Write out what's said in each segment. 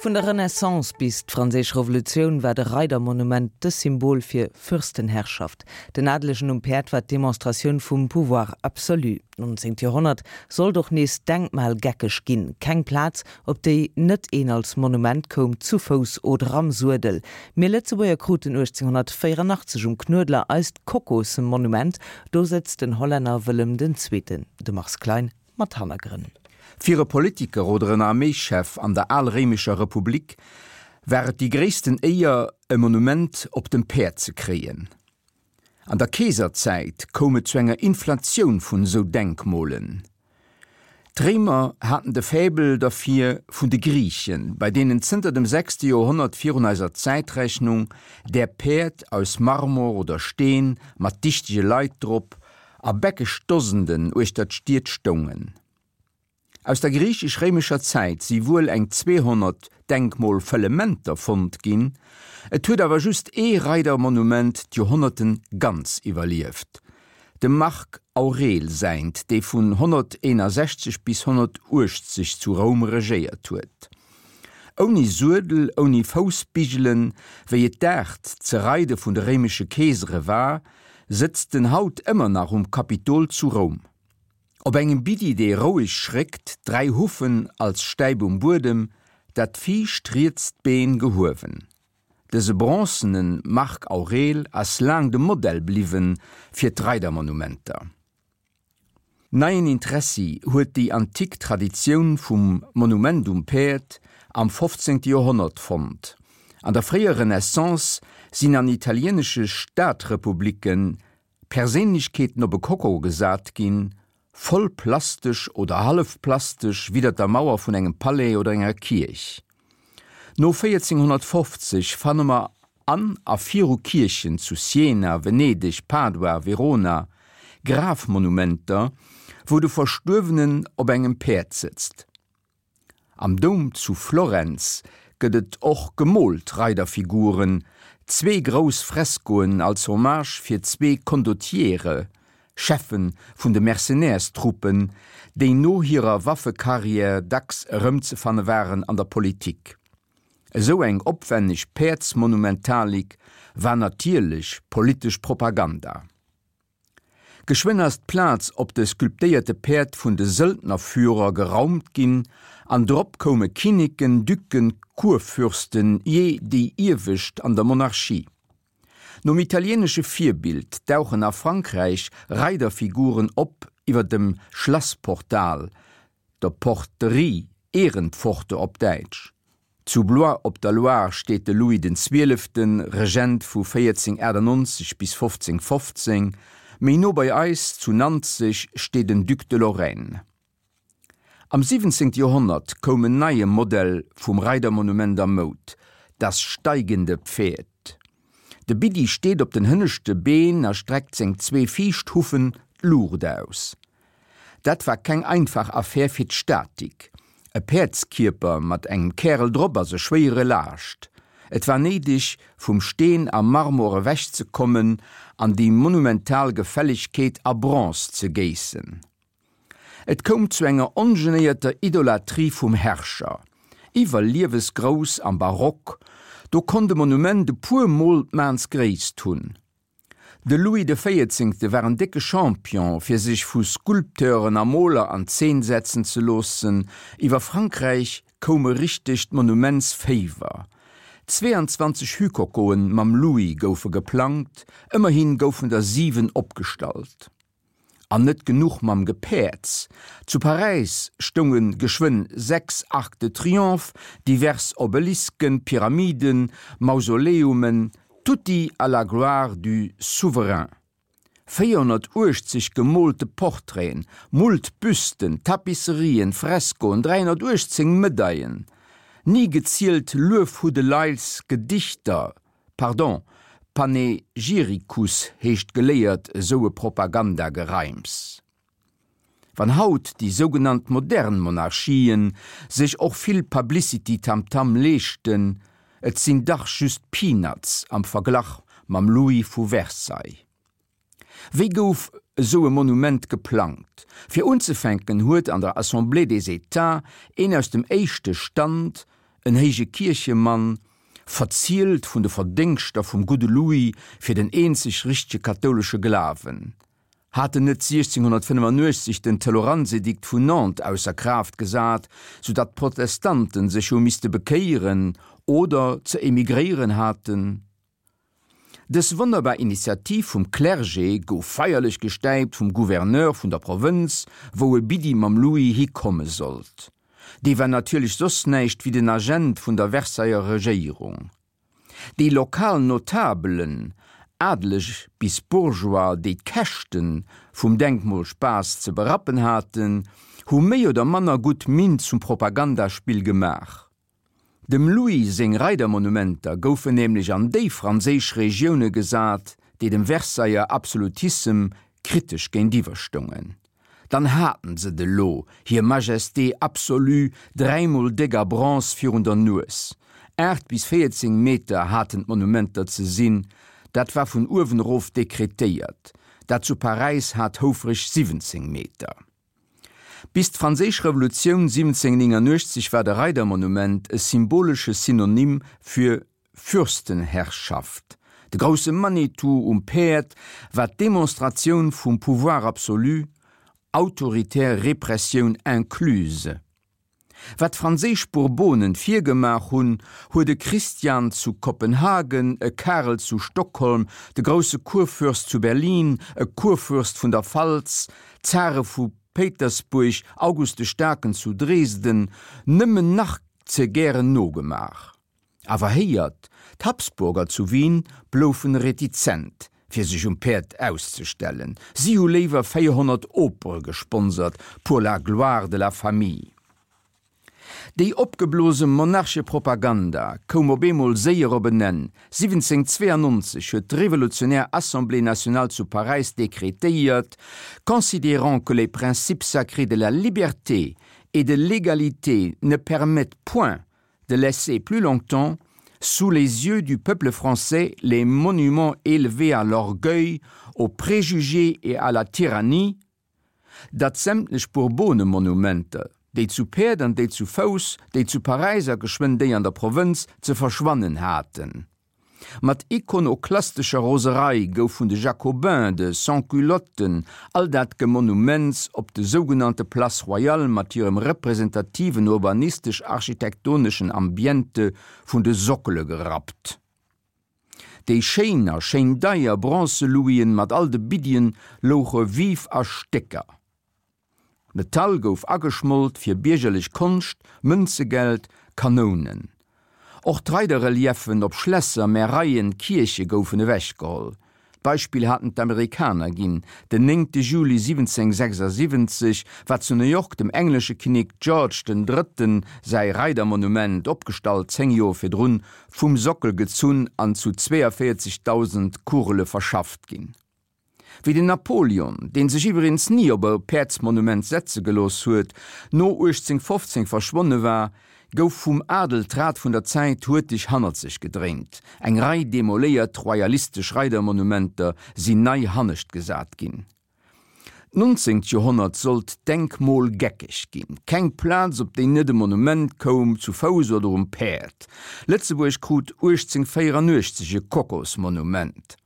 Vun der Renaissance bis d'Franséisch Revolutioun war de Reidermonument de Symbol fir Fürstenherrschaft. Den Adelegen um Päerd war d'Demonstratioun vum Pouvoir absolu. D'nonzéngt Joerhonnert sollt och nees denkmalgeckeg ginn, keng Plaz, op déi net een als Monument koum, zu Fouss oder am Suedel. Mir Lëtzebuerger kruten 1884 um Knuedler eist Kokosmonument, do sëtzt den Hollänner Wëllem den Zweeten, de Mars Klein mat Hannergrënn. Fir e Politiker oder en Arméischef an der alréimescher Republik war et déi gréissten Éier, e Monument op dem Päerd ze kréien. An der Keeserzäit koum et zu enger Inflatioun vun esou Denkmolen. D'Réimer haten de Faible derfir vun de Griichen, bei deenen zënter dem sechste Joerhonnert virun eiser Zäitrechnung där Päerd aus Marmor oder Steen mat dichtege Leit drop a bäckeg Dosenden uechter d'Stied stoungen. Aus der griichesch-réimescher Zäit si wuel eng 200 Denkmolfëllementer fonnt ginn, et huet awer just ee Reidermonument d'Joerhonnerte ganz iwwerlieft, dem Marc Aurel säint, dee vun 161 bis 180 zu Roum regéiert huet. Ouni Suedel, ouni Foussbigelen, wéi et d'Aart ze reide vun de réimesche Keesere war, sëtzt en haut ëmmer nach um Kapitol zu Roum. Op engem Biddi, dee roueg schréckt, 3 Huffen als Stäip um Buedem, dat viischt rietst Been gehuewen. Dëse bronzene Marc Aurel ass laang de Modell bliwwe fir d'Reidermonumenter. Neien Interessi huet déi antik Traditioun vum Monument um Päerd am 15. Joerhonnert fonnt. An der fréier Renaissance sinn an italieenesche Stadrepublicken Perséinlechkeeten op e Koko gesat ginn, voll plastesch oder hallef plastesch widder der Mauer vun engem Palais oder enger Kierch. No 1450 fanne mer an a viru Kierchen zu Siena, Venedeg, Padua, Verona Grafmonumenter, wou de Verstuerwenen op engem Päerd sëtzt. Am Doum zu Florenz gëtt et och gemoolt Reiderfiguren, zwee grouss Freskoen als Hommage fir zwee Condottiere, Cheffen vun de Mercenärstruppen, déi no hirer Waffekarriär dacks erëmzefanne waren an der Politik. Esou eng opwenneg Päerdsmonumentalik war natierlech politesch Propaganda. Geschwënn ass d'Plaz op de sculptéierte Päerd vun de Söldnerführer geraumt ginn an drop koume Kinneken, Ducken, Kurfürsten, jee déi iewescht an der Monarchie. Nom italieenesche Virbild dauchen a Frankräich Reiderfiguren op iwwer dem Schlassportal, der Porterie, Ehrenpforte op Däitsch. Zu Blois op der Loire steet de Louis den Zwieleften, Regent vu 1498 bis 1515, méi no bei eis, zu Nanzeg, steet en Duc de Lorraine. Am 17. Joerhonnert koum en neie Modell vum Reidermonument a Moud, das steigende Pferd. De Biddi steet op den hënneschte Been a streckt seng zwee viischt Huffen d'Luucht aus. Dat war keng einfach Affär fir d'Statik. E Päerdskierper mat engem Kärel drop ass e schwéiere Laascht. Et war néideg, vum Steen a Marmor ewech ze kommen an déi monumental Gefällegkeet a Bronze ze géissen. Et koum zu enger ongenéierter Idolatrie vum Herrscher. Iwwerliewesgrouss am Barock, do konnt e Monument e puer Mol d'Maansgréisst hunn. De Louis de Véierzéngte war en décke Champion, fir sech vu Sculpteuren a Moler an Zeen setzen ze loossen. Iwwer Frankräich koum e richtegt Monumentsféiwer. 22 Hükokoen mam Louis goufe geplangt, ëmmerhi goufen der 7 opgestallt. An net genuch mam Gepäerds, zu Paräis stounge geschwënn 6 Arcs de Triomphe, divers Obelisken, Pyramiden, Mausoleumen, tutti à la gloire du souverain. 480 gemoolte Portraiten, moult Büsten, Tapisserien, Freskoen, 318 Medaillen, ni gezielt Luefhuddeleils, Gedichter, Pardon, Panegyricus heescht geléiert esou e Propagandagereims. Wann haut déi sougenannt modern Monarchien sech och vill Publicity-Tamtam leeschten, et sinn dach just Peanuts am Verglach mam Louis vu Versailles. Wéi gouf esou e Monument geplangt? Fir unzefänken huet an der Assemblée des Etats een aus dem éischte Stand. en héije Kierchemann, verzielt vun de Verdéngschter vum gudde Louis fir den eenzeg richtege kathoulesche Glawen. Hat en net 1685 den Toleranzedikt vun Nantes ausser Kraaft gesat, sou datt d'Protestanten sech hu misste bekéieren oder ze emigréieren haten? Dës wonnerbar Initiativ vum Clergé gouf feierlech gestäipt vum Gouverneur vun der Provënz, wou e Biddi mam Louis hikomme sollt. Dee war natierlech soss näischt wéi den Agent vun der Versailler Regéierung. Déi lokal Notabelen, Adeleg bis Bourgeois, déi d'Käschte vum Denkmolspaass ze berappen haten, hu méi oder manner gutt Minn zum Propagandaspill gemaach. Dem Louis seng Reidermonumenter goufen nämlech an déi franséisch Regioune gesat, déi dem Versailler Absolutissem kritesch géintiwwer stoungen. Dann haten s'et elo, hir Majesté absolue, dräimol déck a Bronze virun der Nues. 8 bis 14 Meter haten d'Monumenter ze sinn, dat war vun uewen erof dekretéiert. Dat zu Paräis hat houfreg 17 Meter. Bis d'Franséisch Revolutioun 1789 war de Reidermonument e symbolesche Synonym fir Fürstenherrschaft. De grousse Manitou um Päerd war d'Demonstratioun vum Pouvoir absolu, autoritär Repressioun incluse. Wat d'franséisch Bourbonen virgemaach hunn, huet e Christian zu Kopenhagen, e Karel zu Stockholm, de grousse Kurfürst zu Berlin, e Kurfürst vun der Pfalz, d'Zare vu Péitersbuerg, August de Staarken zu Dresden, nëmmen nach ze gären nogemaach. Awer héiert, d'Habsburger zu Wien bloufen retizent, fir sech um Päerd auszestellen. Si hu léiwer 400 Opere gesponsert pour la gloire de la famille. Déi opgeblose Monarchepropaganda koum op eemol séier op en Enn. 1792 huet d'revolutionär Assemblée nationale zu Paräis dekretéiert, Considérant que les principes sacrés de la liberté et de l'égalité ne permettent point de laisser plus longtemps sous les yeux du peuple français les monuments élevés à l'orgueil, aux préjugés et à la tyrannie, datt sämtlech Bourbonemonumenter, déi zu Päerd an déi zu Fouss, déi zu Paräis a geschwënn déi an der Provënz, ze verschwannen haten. Mat ikonoklastescher Roserei gouf vun de Jacobins, de Sans-Culotten, all dat Gemonuments op de sougenannte Place Royale mat hirem representativen urbanistesch-architektoneschen Ambiente vun de Sockele gerappt. Déi schéin a schéin deier Bronze-Louisen mat all de Biddien louche vif a Stécker. Metall gouf ageschmolt fir biergerlech Konscht, Mënzegeld, Kanounen. Och d'Reiderreliefen op Schlässer, Märeien, Kierche goufen ewechgeholl. D'Beispill haten d'Amerikaner ginn, Den 9 Juli 1776 war zu New York dem englesche Kinnek George den Drëtten säi Reidermonument, opgestallt 10 Joer virdrun, vum Sockel gezunn an zu 42.000 Kugele verschafft ginn. Wéi den Napoleon, dee sech iwweregens ni op e Päerdsmonument setze gelooss huet, no 1815 verschwonne war, gouf vum Adel d'Rad vun der Zäit huerteg hannert sech gedréint. Eng Rei demoléiert royalistesch Reidermonumenter sinn nei hannescht gesat ginn. D'nonzéngt Joerhonnert sollt denkmolgeckeg ginn. Keng Plaz, op déi net e Monument koum, zu Fouss oder um Päerd. Lëtzebuerg krut 1884 e Kokosmonument.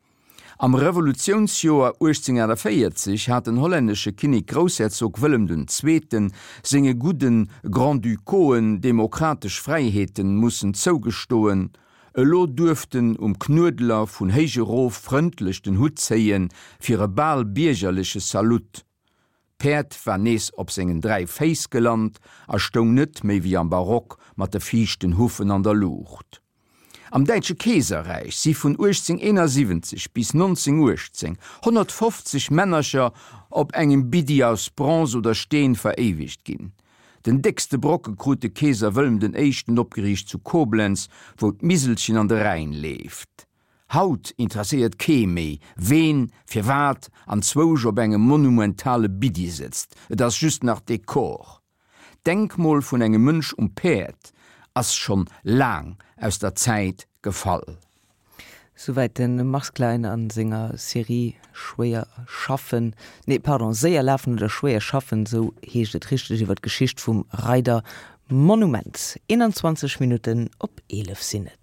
Am Revolutiounsjoer 1848 hat den hollännesche Kinnek-Groussherzog Wëllem den Zweeten senge gudde Grand-Ducauxen demokratesch Fräiheeten mussen zougestoen. Elo duerft en um Knuedler vun héich erof frëndlech den Hutt zéie fir e bal biergerleche Salut. D'Päerd war nees op sengen 3 Féiss gelant a stoung net méi wéi am Barock mat de viischten Huffen an der Luucht. Am Däitsche Keeserräich si vun 1871 bis 1918 150 Männercher op engem Biddi aus Bronze oder Steen veréiwegt ginn. Den déckste Brocke krut de Keeser Wëllem den Éischten opgeriicht zu Koblenz, wou d'Miselchen an de Rhäin leeft. Haut interesséiert kee méi, ween, firwat anzwousch op engem monumentale Biddi sëtzt, et ass just nach Dekor. D'Denkmol vun engem Mënsch um Päerd ass schonn laang aus der Zäit gefall. Souwäit de Mars Klein a senger Serie Schwéier schaffen, nee pardon, Séier lafen oder schwéier schaffen, esou heescht et richteg, iwwer d'Geschicht vum Reidermonument. Monument. 21 Minutten op 11 sinn et.